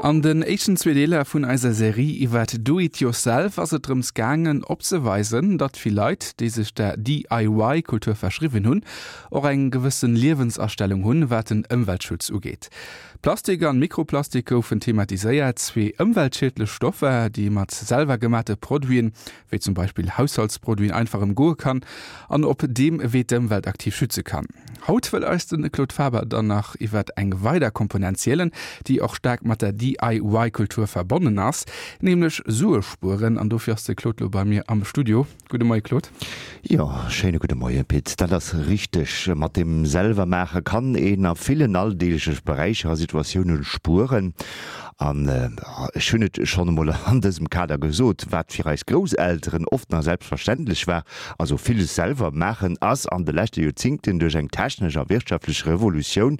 An den éischten zwee Deeler vun eiser Serie iwwert Do It Yourself ass et drëms gaangen opzeweisen, datt vill Leit, déi sech der DIY-Kultur verschriwwen hunn, och eng gewëssen Liewensastellung hunn, wat den Ëmweltschutz ugeet. Plastik an Mikroplastik goufen thematiséiert, zwee ëmweltschiedlech Stoffer, déi ee mat selwer gemate Produiten, wéi zum Beispill Haushaltsproduiten, einfach ëmgoe kann an op deem Wee d'Ëmwelt aktiv schütze kann. Haut wëll eis de Claude Faber dann nach iwwert eng weider Komponent zielen, déi och staark mat der DIY-Kultur verbonnen ass, nämlech Sue spueren. An dofir ass de Claude lo bei mir am Studio. Gudde Moie Claude. Jo, schéine gudde Moie Pit. Dat ass richteg, mat dem selwer maache kann een a villen alldeegleche Beräicher a Situatioune spueren. An ech hunn et schonn emol an dësem Kader gesot, wat fir eis Grousselteren oft nach selbstverständlech war, also villes selwer maachen, ass an de leschte Joerzingten duerch eng technesch a wirtschaftlech Revolutioun,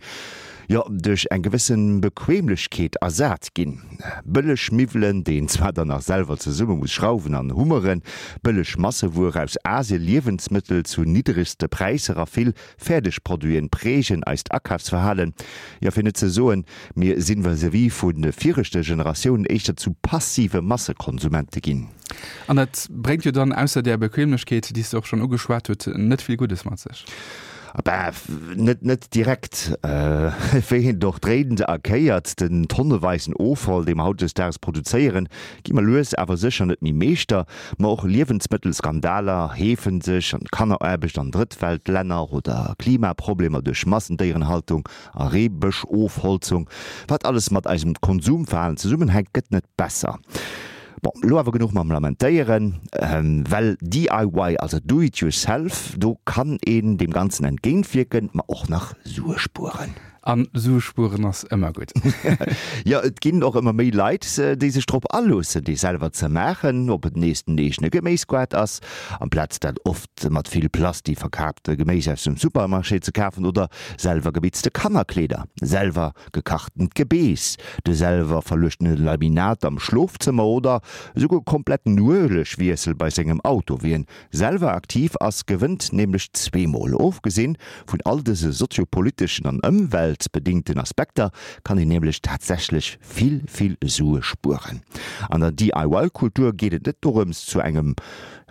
jo duerch eng gewësse Bequemlechkeet ersat ginn. Bëlleg Miwwelen, déi een zwar dann nach selwer zesumme muss schrauwen an hummeren, bëlleg Massewuer aus Asien, Liewensmëttel zu niddregste Präisser a vill Fäerdeg Produiten prägen eist Akafsverhalen, jo fir net ze soen, mir sinn vis-à-vis vu viregte Generatiounen éischter zu passive Massekonsumente ginn. An dat bréngt jo dann ausser där Bequemlechkeet, déi s de och schonn ugeschwat huet, net vill Guddes mat sech. Bah, net net direkt. Wéi een et och dréint a kéiert, den tonneweisen Offall, dee mer hautdesdaags produzéieren, gi mer lues awer sécher net méi Meeschter. Ma och Liewensmëttelskandaler heefen sech, an Kanneraarbecht an Drëttweltlänner oder Klimaproblemer duerch Massendéierenhaltung a Reebëschofholzung. Wat alles mat eisem Konsumverhalen zesummenhänkt, gëtt net besser. Bon, elo awer genuch mam Lamentéieren, well DIY, also Do It Yourself, do kann een deem Ganzen entgéintwierken, ma och nach Sue spueren. An Sue spueren ass ëmmer gutt. Jo, et ginn och ëmmer méi Leit, déi sech drop aloossen, dee selwer ze maachen, ob et nees den eegene Geméisgoart ass, amplaz dat oft mat vill Plasti verkaapte Geméis aus dem Supermarché ze kafen, oder selwer gebitzte Kannerkleeder, selwer gekachtent Gebeess, de selwer verluechtene Laminat am Schlofzëmmer oder esouguer kompletten Uelegwiessel bei sengem Auto. Wien selwer aktiv ass, gewënnt nämlech zweemol. Ofgesinn vun all dëse soziopoliteschen an ëmweltbedingten Aspekter kann een nämlech tatsächlech vill, vill Sue spueren. An der DIY-Kultur geet et net dorëms, zu engem,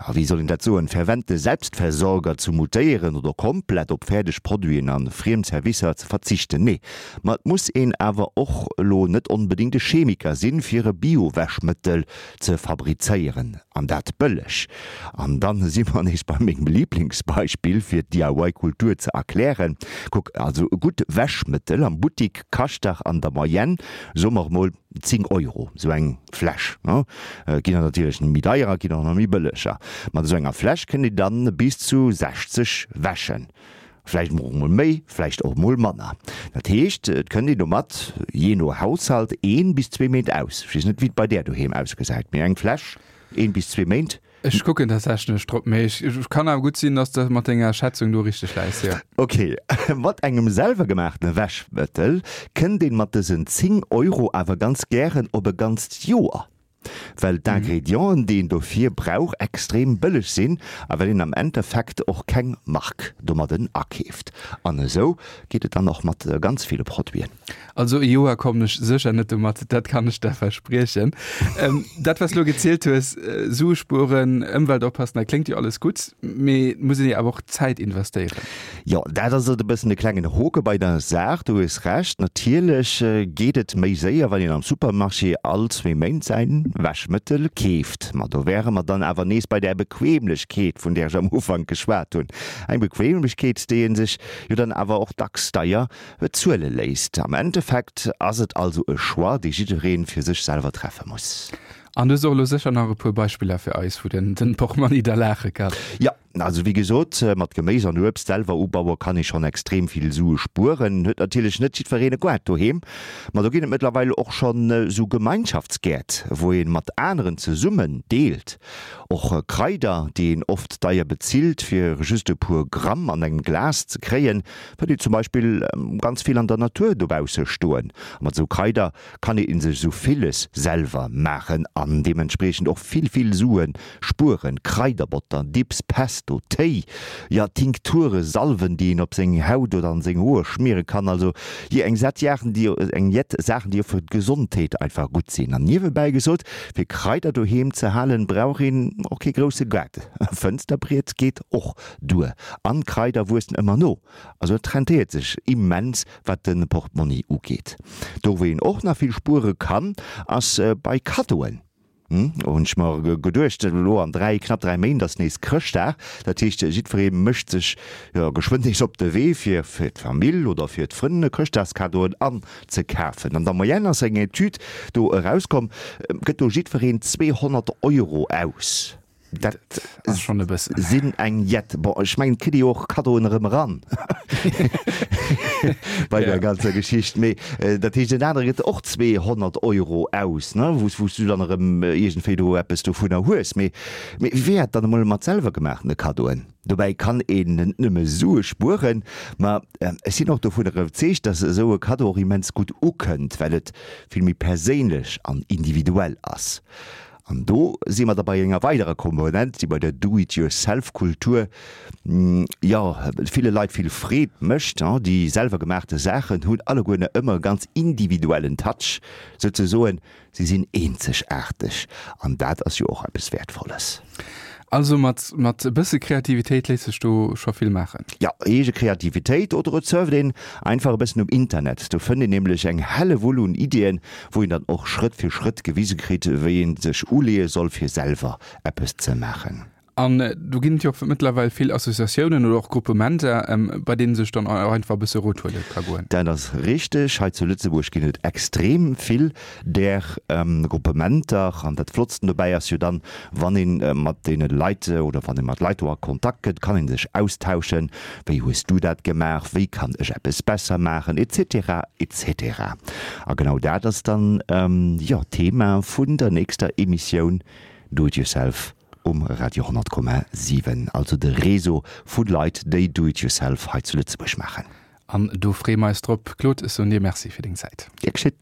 ja wéi soll een dat soen, fervente Selbstversorger ze mutéieren oder komplett op fäerdeg Produiten a friem Servicer ze verzichten. Nee, ma et muss een awer och elo net onbedéngt e Chemiker sinn, fir e Bio-Wäschmëttel ze fabrizéieren, an dat bëlleg. An dann si mer nees bei mengem Lieblingsbeispill fir d'DIY-Kultur ze erklären. Kuck, also e gutt Wäschmëttel am Buttik kascht dach an der Moyenne, soe mer emol 10 Euro, esou eng Fläsch. Et ginn der natierlech méi deierer, et ginn och nach méi bëlleger. Mat esou enger Fläsch kënnt een dann bis zu 60 Wäschen. Vläicht och mol méi, vläicht och mol manner. Dat heescht, et kënnt een domat, jee no Haushalt, een bis zwee Méint aus. Ech weess net, wéi et bei där doheem ausgesäit, mee eng Fläsch, een bis zwee Méint. Ech kucken tatsächlech drop, mee ech kann awer gutt sinn, dass de mat denger Schätzung do richteg läis, jo. Ok, mat engem selwergemaachtene Wäschmëttel kënnt een mat dësen 10 Euro awer ganz gären op e ganzt Joer. Well d'Ingredienten, déi een dofir brauch, extrem bëlleg sinn a well een am Endeffekt och keng Mark domadden akeeft. An esou geet et dann och mat ganz ville Produiten. Also e Joer kommen ech sécher net domat, dat kann ech der verspriechen. Dat wat s lo gezielt hues, Sue spueren, Ëmwelt oppassen, dat kléngt jo alles gutt, mee et muss een jo awer och Zäit investéieren. Jo, dat ass et e bëssen de klengen Hoke bei der Saach, du hues Recht. Natierlech geet et méi séier, wann een am Supermarché all zwee Méint säin Wäschmëttel keeft. Ma do wäre mer dann awer nees bei där Bequemlechkeet, vun där ech am Ufank geschwat hunn. Eng Bequemlechkeet, déi ee sech jo dann awer och dacks deier bezuele léisst. Am Endeffekt ass et also e Choix, dee jidderee fir sech selwer treffe muss. An du hues och elo sécher nach e puer Beispiller fir eis, wou den Portmonni da laache kann. Jo, Also wéi gesot, mat Geméis an Uebst selwer ubaue kann ee schonn extrem vill Sue spueren. Huet natierlech net jiddwereen e Goart doheem, ma do ginn et mëttlerweil och schonn esou Gemeinschaftsgäert, wou ee mat aneren zesummen deelt. Och Kraider, déi een oft deier bezilt fir just e puer Gramm an engem Glas ze kréien, fënnt een zum Beispill ganz vill an der Natur dobausse stoen. A mat esou Kraider kann ee sech esou villes selwer maachen an deementspriechend och vill, vill Sue spueren, Kraiderbotter, Dips, Pesto. heiansdo Téi, jo Tinkture, Salven, déi een op seng Haut oder an seng Hoer schmiere kann. Also jo eng Sett Jaachen, déi eng jett Saachen, déi och fir d'Gesondheet einfach gutt sinn. An niewebäi gesot, fir Kraider doheem ze halen, brauch een och kee grousse Gaart. E Fënsterbriet geet och duer. An d'Kraider wuessen ëmmer no. Also et rentéiert sech immens wat de Portmonni ugeet. Do wou een och nach vill spuere kann, ass bei Kaddoen. Hunn ech mer geduecht, elo an 3, knapp 3 Méint ass nees Chrëschtdag, dat heescht jiddweree mécht sech jo geschwënn nees op de Wee fir fir d'Famill oder fir d'Frënn Chrëschtdagskaddoen anzekafen. An der Moyenne ass eng Etüd do erauskomm, gëtt do jiddwereen 200 Euro aus. Dat ass schonn e bëssen. Sinn eng jett. Bon, ech mengen, et kritt ee jo och Kaddoen erëm eran bei der ganzer Geschicht. Mee dat heescht, en anere gëtt och 200 Euro aus, ne, wou s du dann erëm iergendwéi do eppes dovunner hues. Mee wéi wär et dann emol mat selwer gemaachene Kaddoen? Dobäi kann een net nëmme Sue spueren, ma ech sinn och dovunner iwwerzeegt, dass esou e Kaddo och immens gutt ukënnt, well et vill méi perséinlech an individuell ass. An do si mer da bei enger weiderer Komponent, déi bei der Do-it-yourself-Kultur, jo, ville Leit vill Freed mécht. Déi selwer gemaachte Saachen hunn alleguerne ëmmer e ganz individuellen Touch, souzesoen, si sinn eenzegaarteg. An dat ass jo och eppes Wäertvolles. Also mat mat e bësse Kreativitéit léisst sech do scho vill maachen. Jo, eege Kreativitéit oder et surft een einfach e bëssen um Internet. Do fënnt een nämlech eng Hellewull un Iddien, wou een dann och Schrëtt fir Schrëtt gewise kritt, wéi een sech uleeë soll fir selwer eppes ze maachen. An do ginn et jo och mëttlerweil vill Associatiounen oder och Gruppementer, bei deenen sech dann och einfach e bësse Rot huele ka goen. Dat ass richteg. Hei zu Lëtzebuerg ginn et extrem vill där Gruppementer. An dat Flottsten dobäi ass jo dann, Wann ee mat deene Leit oder wann ee mat Leit do a Kontakt kënnt, kann ee sech austauschen, Wéi hues du dat gemaach, wéi kann ech eppes besser maachen, etc. Etc. A genau dat ass dann, jo, d'Thema vun der nächster Emissioun Do It Yourself um Radio 100,7, also de Réseau vu Leit, déi Do It Yourself hei zu Lëtzebuerg maachen. An do freeë mer eis drop. Claude, ech soen dir Merci fir deng Zäit. Gär geschétt.